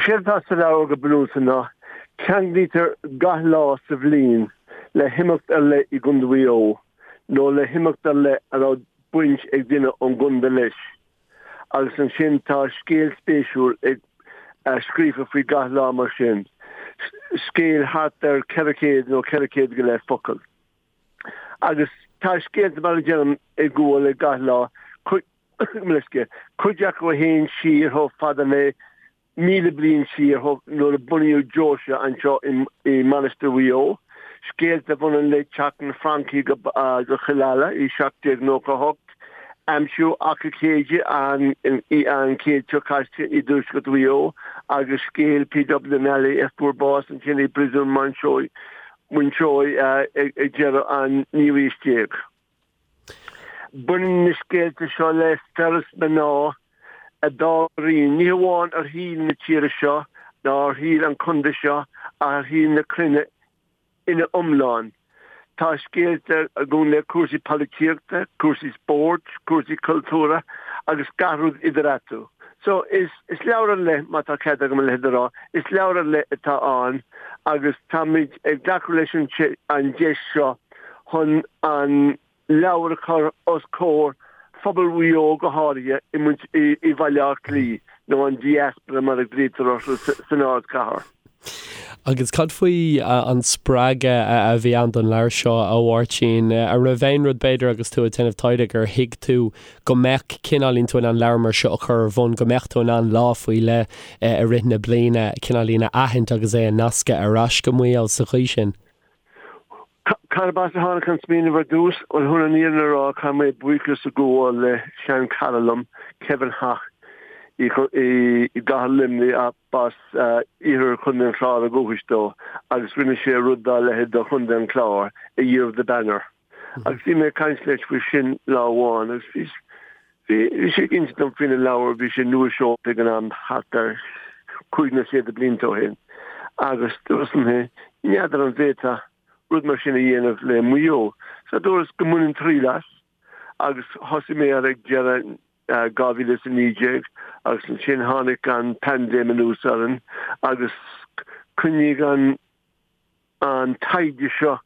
Séard atá sa leabhar go bunúsach ná ceanglaítear gach lá sa bhliain le himeacht ar leith i gContae Mhaigh Eo nó le himeacht ar leith a raibh baint ag duine ón gcontae leis agus ansin tá scéal spéisiúil ag scríofa faoi gach lá mar sin, scéal thart ar 400 nó 400 go leith focal. Agus tá scéalta mar a deirim ag gabháil le gach lá, cuid acu a théann siar chomh fada le 1,000 bliain siar nuair a bunaíodh deoise anseo i Mainistir Mhaigh Eo, scéalta a bhaineann le teacht na Francaigh go Cill Ala i 1798, aimsiú Achadh Céide an chéad seo caite i dtuaisceart Mhaigh Eo agus scéal P.W. Nally a fuair bás ansin i bPríosún Mountjoy ag deireadh an naoú haois déag. Baineann na scéalta seo le fir is mná a d'fhág a rian, ní hamháin ar shaol na tíre seo ná ar shaol an chontae seo ach ar shaol na cruinne ina iomlán. Tá scéalta a ghabhann le cúrsaí polaitíochta, cúrsaí spóirt, cúrsaí cultúrtha agus gach rud idir eatarthu. So, is leabhar ar leith, má tá cead agam a leithéid a rá, is leabhar ar leith atá ann agus táimid ag glacadh leis an deis seo chun an leabhar a chur os comhair phobal Mhaigh Eo go háirithe i mBaile Átha Cliath, nó an diaspora mar a ghlaoitear orthu san ardchathair. Agus cad faoi an spreagadh a bhí ann don leabhar seo, a Mháirtín? An raibh aon rud, b'fhéidir, agus tú ag déanamh taighde, gur thuig tú go mbeadh cineáilín tú in ann leabhar mar seo a chur ar bun, go mbeadh tú in ann lá faoi leith i rith na bliana cineáilín a aithint agus é a nascadh ar ais go Maigh Eo sa chaoi sin? Cárb as a tháinig an smaoineamh ar dtús? Bhuel, chun an fhírinne a rá, caithfidh mé buíochas a ghabháil le seanchara liom, Kevin Haughey, i gcathair Luimnigh, ach b'as iarthar Chontae an Chláir ó dhúchas dó, agus rinne sé rud dá leithéid do Chontae an Chláir, A Year of the Banner. Agus bhí mé ag caint leis faoi sin lá amháin, agus bhí Bhí sé ag insint dom faoina leabhar, bhí sé nua-seolta ag an am, thart ar chúig nó sé de blianta ó shin, agus dúras liom féin, n'fheadar an bhféadfá rud mar sin a dhéanamh le Maigh Eo. So dúras go mbainfinn triail as, agus thosaigh mé air ag deireadh 2019, agus ansin tháinig an paindéim anuas orainn, agus choinnigh an an taighde seo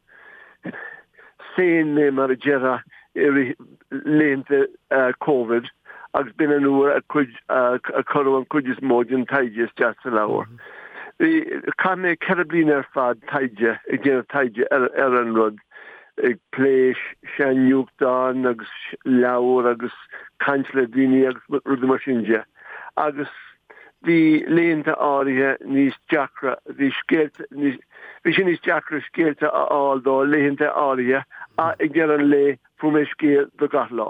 féin mé, mar a déarfá, i rith laethanta Covid agus b'in an uair a cuireadh an chuid is mó den taighde isteach sa leabhar. Bhí, chaith mé 4 bliana ar fad taighde, ag déanamh taighde ar an rud, ag plé sean-nuachtáin agus leabhair agus caint le daoine agus rudaí mar sin de. Agus bhí laethanta áirithe níos deacra, bhí scéalta níos, bhí sé níos deacra scéalta a fháil do laethanta áirithe ach ag deireadh an lae fuair mé scéal do gach lá.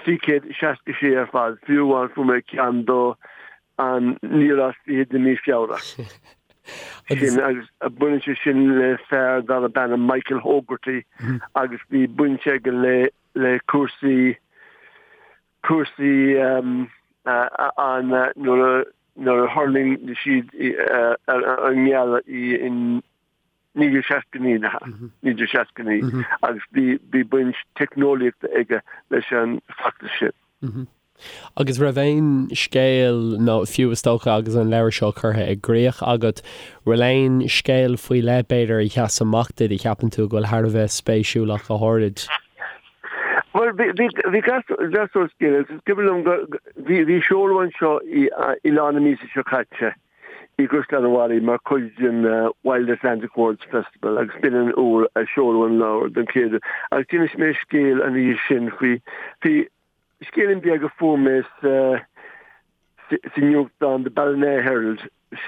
366 ar fad, fiú amháin fuair mé ceann do an 29ú lá de mhí Feabhra. Sin agus baineann sé sin le fear darb ainm Michael Hogarty agus bhí baint aige le le cúrsaí cúrsaí an nuair a thuirling siad ar an ngealach in 1969, 1969 agus bhí baint teicneolaíochta aige leis an bhfeachtas sin. Agus raibh aon scéal, nó fiú is dócha agus an leabhar seo curtha i gcrích agat, bhfuil aon scéal faoi leith b'fhéidir a sheas amach duit a cheapann tú go bhfuil thar a bheith spéisiúil ach go háirid? Bhuel, bhí gach sórt scéal agus is cuimhin liom go, bhí seoladh anseo i lár na míosa seo caite i gCaisleán an Bharraigh mar chuid den Wild Atlantic Words Festival agus b'in an uair a seoladh an leabhar don chéad uair agus d'inis mé scéal an oíche sin faoi, faoi scéilín beag a fuair mé sa, sa nuachtán The Ballina Herald,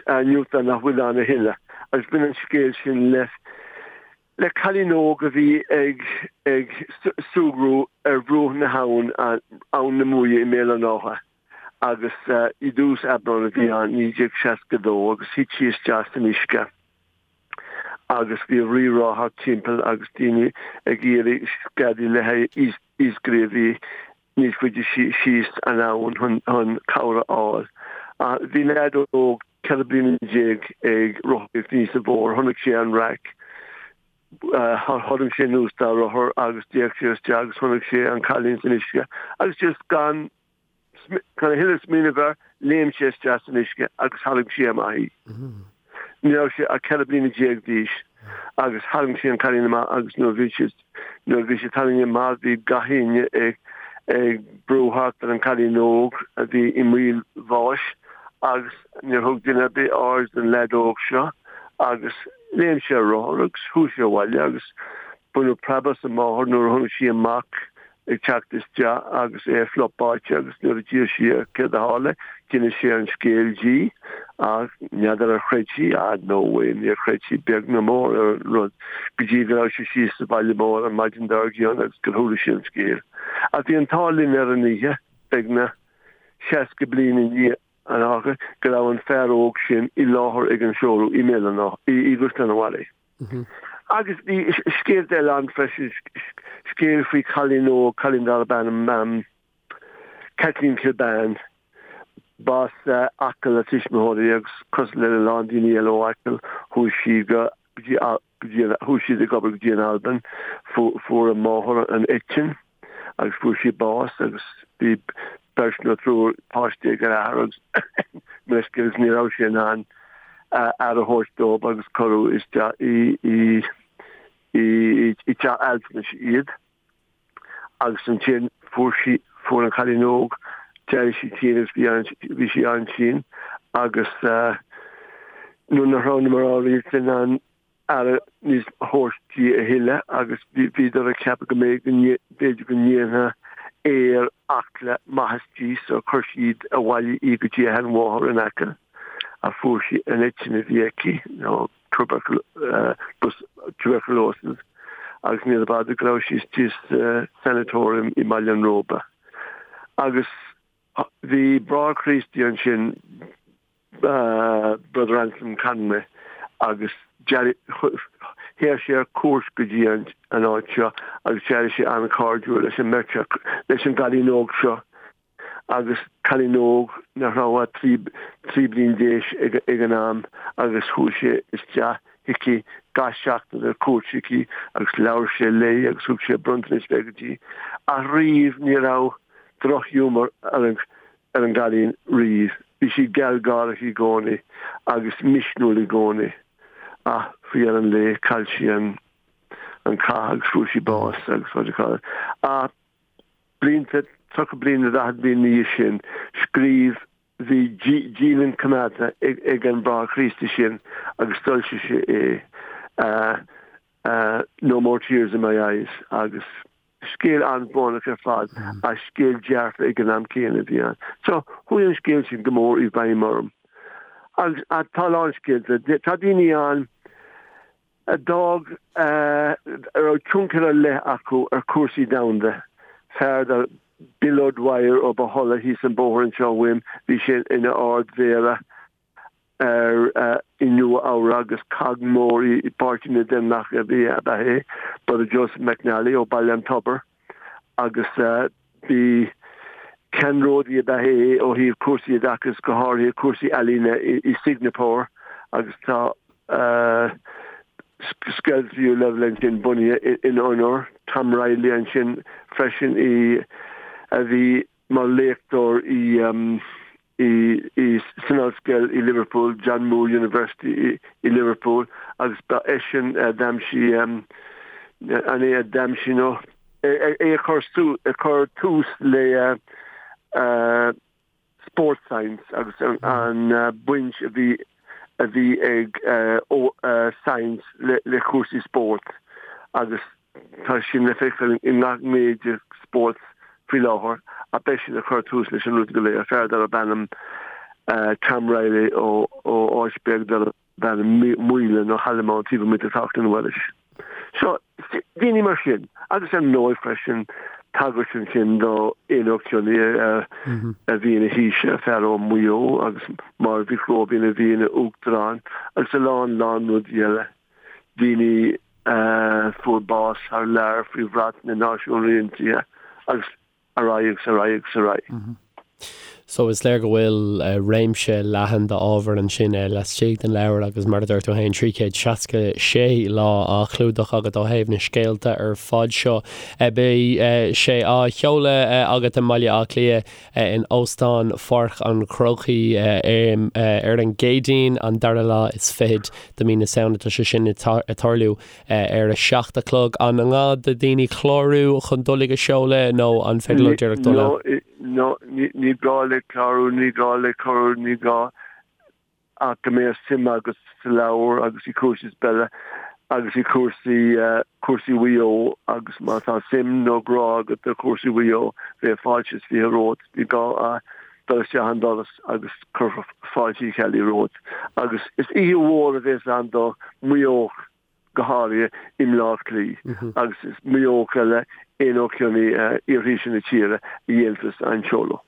nuachtán nach bhfuil ann a thuilleadh agus bhain an scéal sin le le cailín óg a bhí ag ag súgradh ar bhruach na habhann, Abhainn na Muaidhe i mBéal an Átha agus i dtús Aibreán a bhí ann, 1962, agus thit sí isteach san uisce agus bhí rí-rá thart timpeall agus daoine ag iarraidh scadaí le haghaidh iascairí a bhí níos faide síos an abhainn chun cabhair a fháil. Bhí leaid óg 14 bliana ag rothaíocht aníos an bóthar, chonaic sé an raic, tharraing sé anuas dá rothar agus d'fhéach sé isteach agus chonaic sé an cailín san uisce agus just gan gan a thuilleadh smaoineamh air. Léim sé isteach san uisce agus tharraing sé amach í. Ní raibh sé ach 14 bliana d'aois agus tharraing sé an cailín amach agus nuair a bhí sé nuair a bhí sé tarraingthe amach bhí gach éinne ag ag brú thart ar an cailín óg a bhí i mbaol bháis agus níor thug duine ar bith aird don leaid óg seo agus léim sé ar rothar agus chuaigh sé abhaile agus baineadh preab as an máthair nuair a chonaic sí a mac ag teacht isteach agus é fliuch báite agus nuair a d'iarr sí air céard a tharla, d'inis sé an scéal di ach n'fheadar ar chreid sí, ah no way, níor chreid sí beag ná mór ar an rud go dtí go raibh sé síos sa bhaile mór an maidin dár gcionn agus gur chuala sí an scéal. Ach bhí an t-ádh linn ar an oíche, beagnach 60 bliain i ndiaidh an tharla, go raibh an fear óg sin i láthair ag an seoladh i mBéal an Átha, i gCaisleán an Bharraigh. Agus bhí scéalta eile ann freisin, scéal faoi chailín óg, cailín darb ainm Kathleen Kilbane. B'as Acaill a tuismitheoirí agus cosúil le a lán daoine eile ó Acaill, chuaigh sí go dtí, chuaigh siad ag obair go dtí an Albain. Fuair a máthair an eitinn agus fuair sí bás agus bhí beirt nó triúr páistí ag an athair agus meisce agus ní raibh sé in ann aire a thabhairt dóibh agus cuireadh isteach i i i teach altranais iad agus ansin fuair sí fuair an cailín óg d'éirigh sí tinn agus bhí an bhí sí an-tinn agus nuair nach raibh na mná rialta in ann aire níos a thabhairt di a thuilleadh agus bhíodar ag ceapadh go mb'fhéidir go ndéanfadh aer Acla maitheas di so chuir siad abhaile í go dtí a sheanmháthair in Acaill ach fuair sí an eitinn a bhí aici nó tuberculosis agus níorbh fhada go raibh sí istigh sa sanatorium i mBaile an Róba. Agus bhí Bráthair Críostaí ansin Brother Anselm Conway agus théadh sé ar cuairt go dtí an áit seo agus d'éirigh sé an-chairdiúil leis an mbeirt leis an gcailín óg seo agus cailín óg nach raibh ach 13 bliain d'aois ag an am agus chuaigh sé isteach chuici gach seachtain ar cuairt chuici agus labhair sé léi agus thug sé bronntanais bheaga di ach riamh ní raibh drochghiúmar ar an ar an gcailín riamh. Bhí sí gealgháireach i gcónaí agus misniúil i gcónaí ach faoi dheireadh an lae chaill sí an an cath agus fuair sí bás agus what do you call it. Ach blianta, 30 bliain nó 40 bliain ina dhiaidh sin, scríobh, bhí dialann coimeádta ag an Bráthair Críostaí sin agus d'fhoilsigh sé é, No More Tears in My Eyes agus Scéal an-bhrónach ar fad ach scéal dearfa ag an am céanna a bhí ann. So, chuaigh an scéal sin go mór i bhfeidhm orm. Agus tá a lán scéalta. Tá daoine ann a d'fhág, a raibh tionchar ar leith acu ar chúrsaí domhanda. Fear dar Bill O'Dwyer ó Bohola thíos an bóthar anseo uaim, bhí sé ina Ard-Mhéara ar i Nua Eabhrac agus cog mór i bPáirtí na nDaonlathach a bhí ab ea é, Brother Joseph McNally ó Baile an Tobair agus bhí ceannródaí ab ea é ó thaobh cúrsaí oideachais, go háirithe cúrsaí ealaíne i Singeapór agus tá scoil tríú leibhéal ansin bunaithe ina onóir. Tom Reilly ansin freisin i a bhí mar léachtóir i i san ollscoil i Liverpool, John Moore University i Liverpool agus ba eisean a d'aimsigh an é a d'aimsigh nó é a chuir a chuir tús le sports science agus an baint a bhí a bhí ag science le cúrsaí spóirt agus Tá sin le feiceáil i ngach gné de spórt faoi láthair ach b'eisean a chuir tús leis an rud go léir, fear darb ainm Tom Reilly ó áit beag darb ainm Maoile nó Hollymount taobh amuigh de Leighlin Mhuiris. So, daoine mar sin. Agus ar ndóigh freisin, tagairt ansin do Éanna Ó Cionnaith a bhí ina Thaoiseach, fear ó Mhaigh Eo, agus Máire Mhic Róibín a bhí ina Uachtarán agus a lán lán rudaí eile. Daoine a fuair bás thar lear faoi bhrat na Náisiún Aontaithe agus ar aghaidh agus ar aghaidh agus ar aghaidh. So is léir go bhfuil réimse leathan d'ábhar ansin laistigh den leabhar agus mar a dúirt tú féin, 366 lá á chlúdach agat ó thaobh na scéalta ar fad seo. Beidh sé á sheoladh agat i mBaile Átha Cliath in Óstán Pháirc an Chrócaigh ar an gCéadaoin, an dara lá is fichead de mhí na Samhna. Tá sé sin ag tarlú ar a 7 a chlog. An gá do daoine clárú chun dul ag an seoladh nó an féidir leo díreach dul ann? No, ní gá le clárú, ní gá le cuireadh, ní gá ach go mbeadh suim agat sa leabhar agus i cúrsaí peile agus i cúrsaí, cúrsaí Mhaigh Eo agus má tá suim nó grá agat do chúrsaí Mhaigh Eo, bheadh fáilte is 20 romhat. Ní gá ach dul isteach an doras agus cuirfear fáilte Uí Cheallaigh romhat. Agus is oíche mhór a bhéas ann do Mhaigh Eo go háirithe i mBleá Cliath agus is Maigh Eoch eile aon ó cionn iarthaoise na tíre a dhéanfas an seoladh.